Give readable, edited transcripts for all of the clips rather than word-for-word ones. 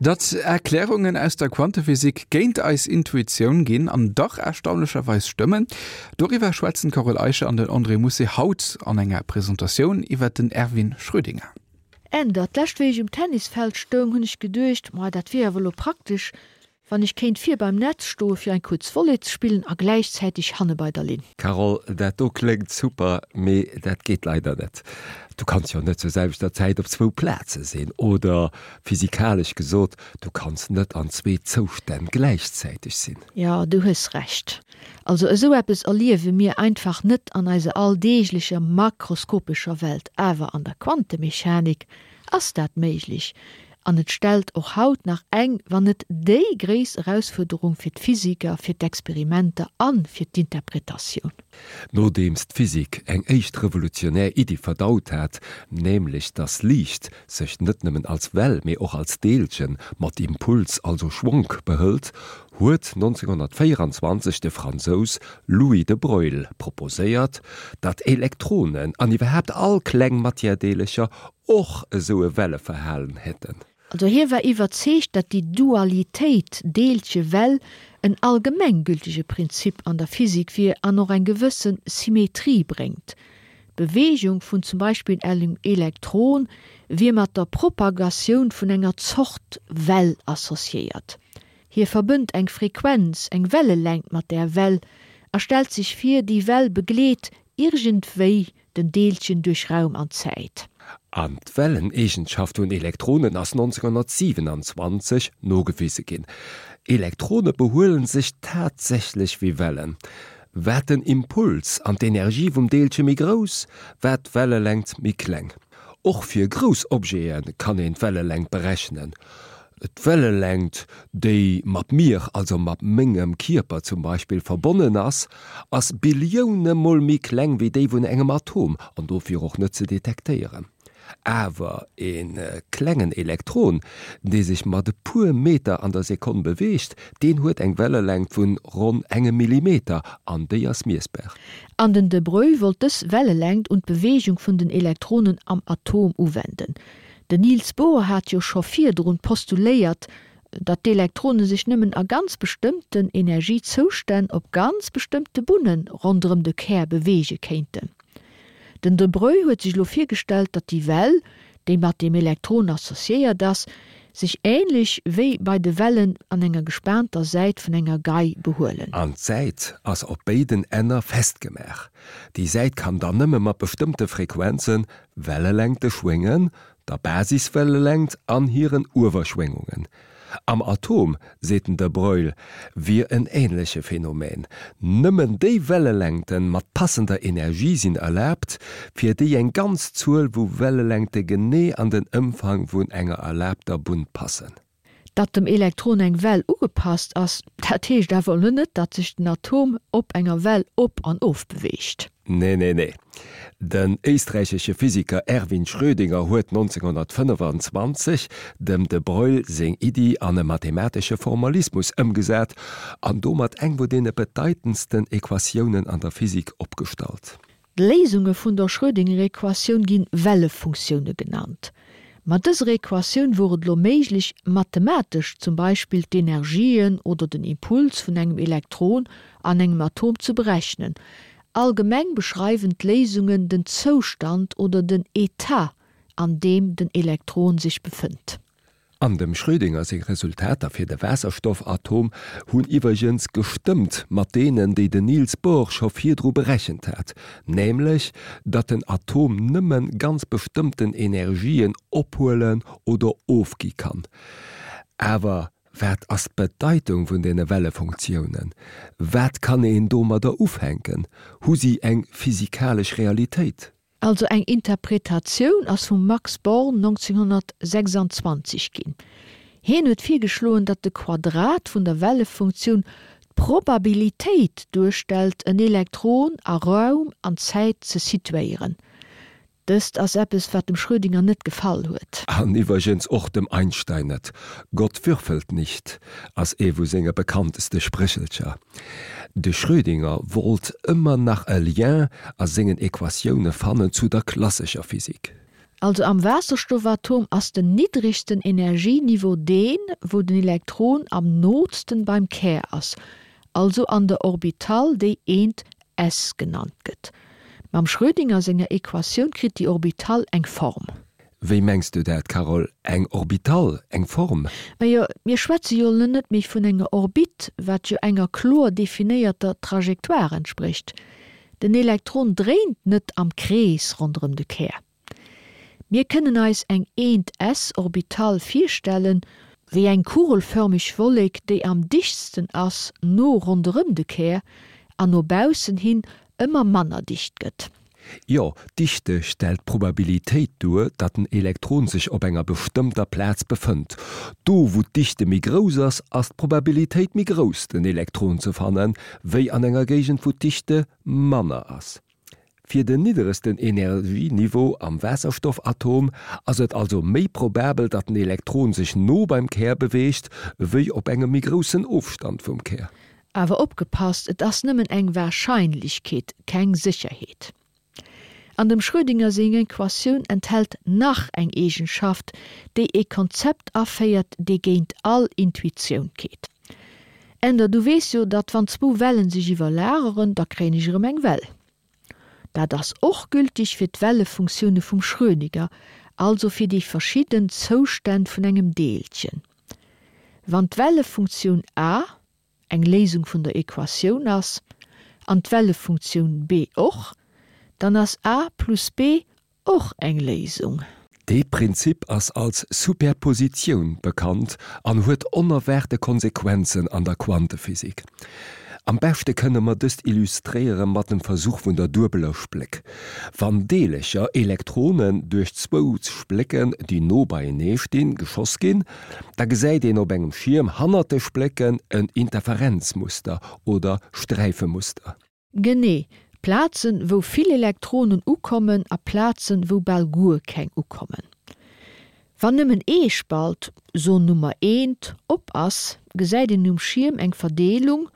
Datt Erklärungen aus der Quantephysik géint eis Intuitioun ginn an dach erstaunlecherweis stëmmen, doriwwer schwätzen d'Carole Eicher an den André Mousset haut an enger Presentatioun iwwer den Erwin Schrödinger. Änder, D'lescht wéi ech um Tennisfeld stoung, hunn ech geduecht, Ma dat wier awer elo praktesch, wann ech kéint vir beim Netz stoe fir eng kuerz Volley ze spillen a gläichzäiteg hanne bei der Linn. Carole, Dat do kléngt super, mee dat geet leider net. Du kanns jo net zur selwechter Zäit op zwou Plaze sinn. Oder physikalesch gesot, du kanns net an zwee Zoustänn gläichzäiteg sinn. Jo, du hues Recht. Also esou eppes erliewe mir einfach net an eiser alldeeglecher makroskopescher Welt, awer an der Quantemechanik ass dat méiglech an et stellt och haut nach eng, wann net déi gréisst Erausfuerderung fir d'Physiker, fir d'Experimenter a fir d'Interpretatioun. Nodeems d'Physik eng éischt revolutionär Iddi verdaut hat, nämlech dass Liicht sech net nëmmen als Well, mee och als Deelchen mat Impuls, also Schwonk, behëlt, huet 1924 de Fransous Louis de Broglie proposéiert, datt Elektronen an iwwerhaapt all kleng Matièredeelercher och esou e Welleverhalen hätten. Also hie war iwwerzeegt, datt déi Dualitéit Deelche-Well en allgemenggültege Prinzip an der Physik wier an och eng gewësse Symmetrie bréngt. D'Beweegung vun zum Beispill engem Elektron wier mat der Propagatioun vun enger Zort Well associéiert. Hie verbënnt eng Frequenz, eng Wellelängt mat där Well a stellt sech vir, déi Well begleet iergendwéi den Deelchen duerch Raum an Zäit. An d'Welleneegenschaft vun Elektronen ass 1927 nogewise ginn. Elektrone behuelen sech tatsächlech wéi Wellen. Wat den Impuls an d'Energie vum Deelche méi grouss, wat d'Wellelängt méi kleng. Och fir grouss Objete kann een d'Wellelängt berechnen. D'Wellelängt, déi mat mir, also mat mengem Kierper zum Beispill, verbonnen ass, ass Billioune mol méi kleng wéi déi vun engem Atom an dofir och net ze detektéieren. Awer e klengen Elektron, dee sech mat e puer Meter an der Sekonn beweegt, deen huet eng Wellelängt vun ronn engem Millimeter an déi ass miessbar. An den de Broglie wollt dës Wellelängt un d'Beweegung vun den Elektronen am Atom uwenden. Den Niels Bohr hat jo scho virdrun postuléiert, datt d'Elektrone sech nëmmen a ganz bestëmmten Energiezoustänn op ganz bestëmmte Bunne ronderëm de Kär beweege kéinten. Den de Broglie huet sech elo virgestallt, datt déi Well, déi mat dem Elektron associéiert ass, sech änlech wéi bei de Wellen an enger gespaanter Säit vun enger Gei behuelen. An d'Säit ass op béiden Enner festgemaach. Déi Säit kann dann nëmme mat bestëmmte Frequenzen, Wellelängte schwéngen, der Basiswellelängt an hiren Uewerschwéngungen. Am Atom, seet den de Broglie, wier en änleche Phänomen, Nëmmen déi Wellelängten mat passender Energie sinn erlaabt, fir déi eng ganz Zuel vu Wellelängte genee an den Ëmfang vun enger erlaabter Bunn passen. Datt dem Elektron eng Well ugepasst ass, dat heescht awer elo net, datt sech den Atom op enger Well op an of beweegt. Nee, nee, nee. Den éisträichesche Physiker Erwin Schrödinger huet 1925 dem de Broglie seng Iddi an e mathematesche Formalismus ëmgesat an domat eng vu deene bedeitendsten Equatiounen an der Physik opgestallt. D'Léisunge vun der Schrödingerequatioun ginn Wellefunktioune genannt. Mat dëser Equatioun wor et elo méiglech, mathematesch zum Beispill d'Energien oder den Impuls vun engem Elektron an engem Atom ze berechnen. Allgemeng beschreiwen d'Léisungen den Zoustand oder den Etat, an deem den Elektron sech befënnt. An dem Schrödinger seng Resultater fir de Waasserstoffatom hunn iwwergens gestëmmt mat deenen, déi den Niels Bohr scho virdru berechent hat, nämlech datt den Atom nëmme ganz bestëmmten Energien ophuelen oder ofgi kann. Awer wat ass d'Bedeitung vun deene Wellefunktiounen? Wat kann een domadder ufänken? Hu si eng physikalesch Realitéit? Also eng Interpretatioun ass vum Max Born 1926 ginn. Hien huet virgeschloen, datt de Quadrat vun der Wellefunktioun d'Probabilitéit duerstellt, en Elektron a Raum an Zäit ze situéieren. Dëst ass eppes, wat dem Schrödinger net gefall huet. An iwwergens och dem Einstein net. Gott würfelt nicht ass ee vu senge bekannteste Spréchelcher. De Schrödinger wollt ëmmer nach e Lien a sengen Equatioune fannen zu der klassescher Physik. Also am Waasserstoffatom ass den niddregsten Energieniveau deen, wou den Elektron am nootsten beim Kär ass, also an der Orbital déi eent s genannt gëtt. Mam Schrödinger senger Equatioun kritt déi Orbital eng Form. Wéi mengs du dat, Carole? Eng Orbital, eng Form? Majo, mir schwätze jo elo net méi vun enger Orbit, wat jo enger kloer definéierter Trajectoire entsprécht. Den Elektron dréint net am Krees ronderëm de Kär. Mir kënnen eis eng eent s-Orbital virstellen, wéi eng kugelförmeg Wollek, déi am dichtsten ass no ronderëm de Kär an no baussen hin ëmmer manner dicht gëtt. Jo, d'Dichte stellt d'Probabilitéit duer, datt en Elektron sech op enger bestëmmter Plaz befënnt. Do wou d'Dichte méi grouss ass, ass d'Probabilitéit méi grouss den Elektron ze fannen, wéi an enger Géigend wou d'Dichte manner ass. Fir den nidderegsten Energieniveau am Waasserstoffatom ass et also méi probabel, datt den Elektron sech no beim Kär beweegt, wéi op engem méi groussen Ofstand vum Kär. Awer opgepasst, et ass nëmmen eng Warscheinlechkeet, keng Sécherheet. An dem Schrödinger seng Equatioun enthält nach eng Eegenschaft, déi ee Konzept aféiert, dee géint all Intuitioun geet. Änder, du weess jo, datt wann zwou Wellen sech iwwerlageren, da kréien ech erëm eng Well. Dat ass och gültig fir d'Wellefunktioune vum Schrödinger, also fir déi verschidden Zoustänn vun engem Deelchen. Wann d'Wellefunktioun a eng Léisung vun der Equatioun ass, an d'Wellefunktioun b och, dann ass a plus b och eng Léisung. Dee Prinzip ass als Superpositioun bekannt an huet onerwaarte Konsequenzen an der Quantephysik. Am beschte kënne mer dëst illustréiere mat dem Versuch vun der duebeler Spléck. Wann Deelercher, Elektronen, duerch zwou Splécken, déi no beienee stinn, geschoss ginn, da gesäit een op engem Schierm hannert de Splécken en Interferenzmuster oder Sträifemuster. Genee, Plazen, wou vill Elektronen ukommen a Plazen, wou bal guer keng ukommen. Wann nëmmen ee Spalt, so Nummer eent, op ass, gesäit een um Schierm eng Verdeelung,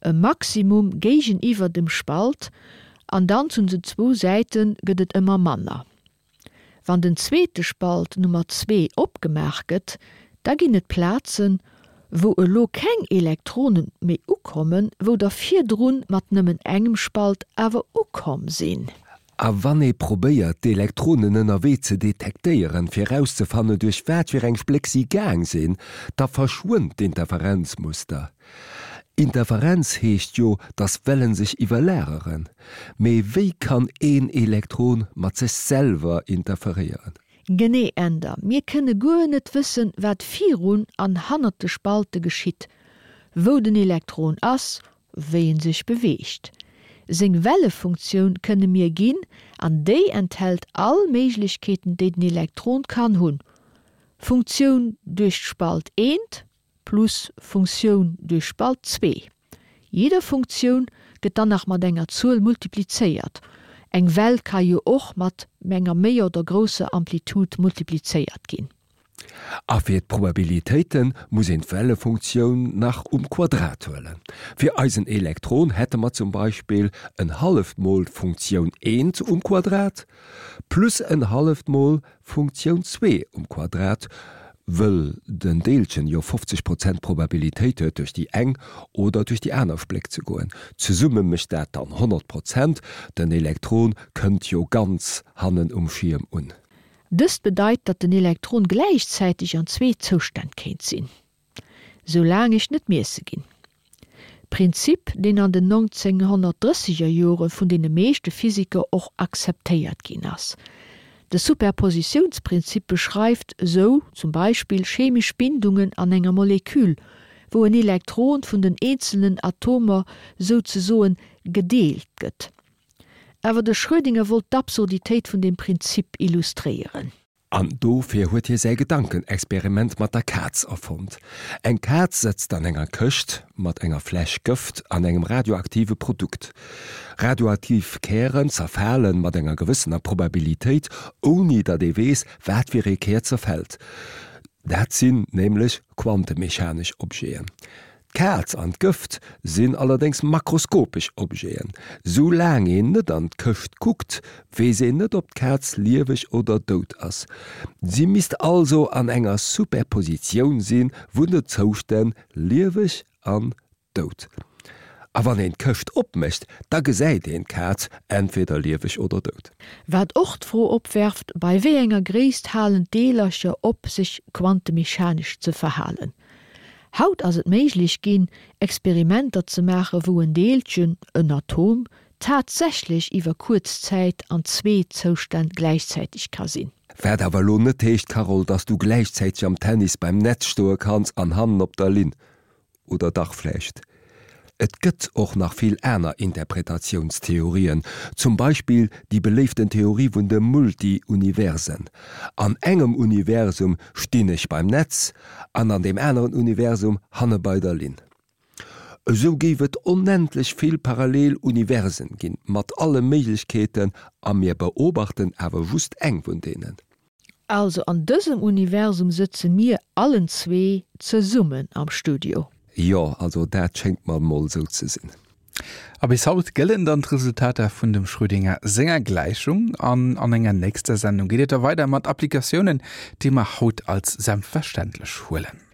e Maximum géigeniwwer dem Spalt, an dann zu den zwou Säite gëtt et ëmmer manner. Wann den zweete Spalt, Nummer zwee, opgemaach gëtt, da ginn et Plazen, wou elo keng Elektrone méi ukommen, wou der virdrun mat nëmmen engem Spalt awer ukomm sinn. A wann ee probéiert, d'Elektronen ënnerwee ze detektéieren, fir erauszefannen, duerch wat fir eng Spléck si gaang sinn, da verschwënnt d'Interferenzmuster. Interferenz heescht jo, dass Wellen sech iwwerlageren. Mee wéi kann een Elektron mat sech selwer interferéieren? Genee, Änder. Mir kënne guer net wëssen, wat virun an hannert de Spalte geschitt, wou den Elektron ass, wéi en sech beweegt. Seng Wellefunktioun kënne mir ginn, an déi enthält all Méiglechkeeten, déi den Elektron kann hunn, Funktioun duerch d'Spalt eent, plus Funktioun duerch Spalt zwee. Jidder Funktioun gëtt dann nach mat enger Zuel multiplizéiert. Eng Well ka jo och mat enger méi oder grousser Amplitude multiplizéiert ginn. A fir d'Probabilitéite muss een d'Wellefunktioun nach um Quadrat huelen. Fir eisen Elektron hätte mer zum Beispill en halleft mol d'Funktioun eent um Quadrat plus en halleft mol Funktioun zwee um Quadrat, wëll den Deelchen jo 50 Prozent Probabilitéit huet duerch déi eng oder duerch déi aner Spléck ze goen. Zesumme mécht dat dann 100 Prozent, den Elektron kënnt jo ganz hannen um Schierm un. Dëst bedeit, datt den Elektron gläichzäiteg an zwee Zoustänn kéint sinn. Soulaang ech net miesse ginn. Prinzip, deen an den 1930er Jore vun deene meeschte Physiker och akzeptéiert ginn ass. De Superpositiounsprinzip beschreift esou zum Beispill chemesch Bindungen an enger Molekül, wou en Elektron vun den eenzelnen Atomer souzesoen gedeelt gëtt. Awer de Schrödinger wollt d'Absurditéit vun deem Prinzip illustréieren. An dofir huet hie säi Gedankenexperiment mat der Kaz erfonnt. Eng Kaz sëtzt an enger Këscht mat enger Fläsch Gëft an engem radioaktive Produkt. Radioaktiv Kären zerfale mat enger gewëssener Probabilitéit, ouni datt ee weess, wat fir ee Kär zerfält. Dat sinn nämlech quantemechanesch Objeten. D'Kaz an d'Gëft sinn allerdéngs makroskopesch Objeten. Sou laang een net an d'Këscht kuckt, weess een net ob d'Kaz lieweg oder dout ass. Si misst also an enger Superpositioun si vun de Zoustänn lieweg an dout. A wann een d'Këscht opmécht, da gesäit een d'Kaz entweder lieweg oder dout. Wat och d'Fro opwerft, bei wéi enger Gréisst halen d'Deelercher op sech quantemechanesch ze verhalen? Haut ass et méiglech ginn, Experimenter ze maachen, wou en Deelchen, en Atom, tatsächlech iwwer kuerz Zäit an zwee Zoustänn gläichzäiteg ka sinn. Wat awer elo net heescht, Carole, dass du gläichzäiteg am Tennis beim Netz stoe kanns an hannen op der Linn. Oder dach vläicht? Et gëtt och nach vill aner Interpretatiounstheorien, zum Beispill déi beléiften Theorie vun de Multi-Universen. An engem Universum stinn ech beim Netz an an deem aneren Universum hanne bei der Linn. Esou géif et onendlech vill parallel Universen ginn, mat alle Méiglechkeeten, a mir beobachten awer just eng vun deenen. Also an dësem Universum sëtze mir allen zwee zesummen am Studio. Jo, also dat schéngt mer mol sou ze sinn. A bis haut gëllen dann d'Resultater vun dem Schrödinger senger Gläichung. An an enger nächster Sendung geet et da weider mat Applikatiounen, déi mer haut als selbstverständlech huelen.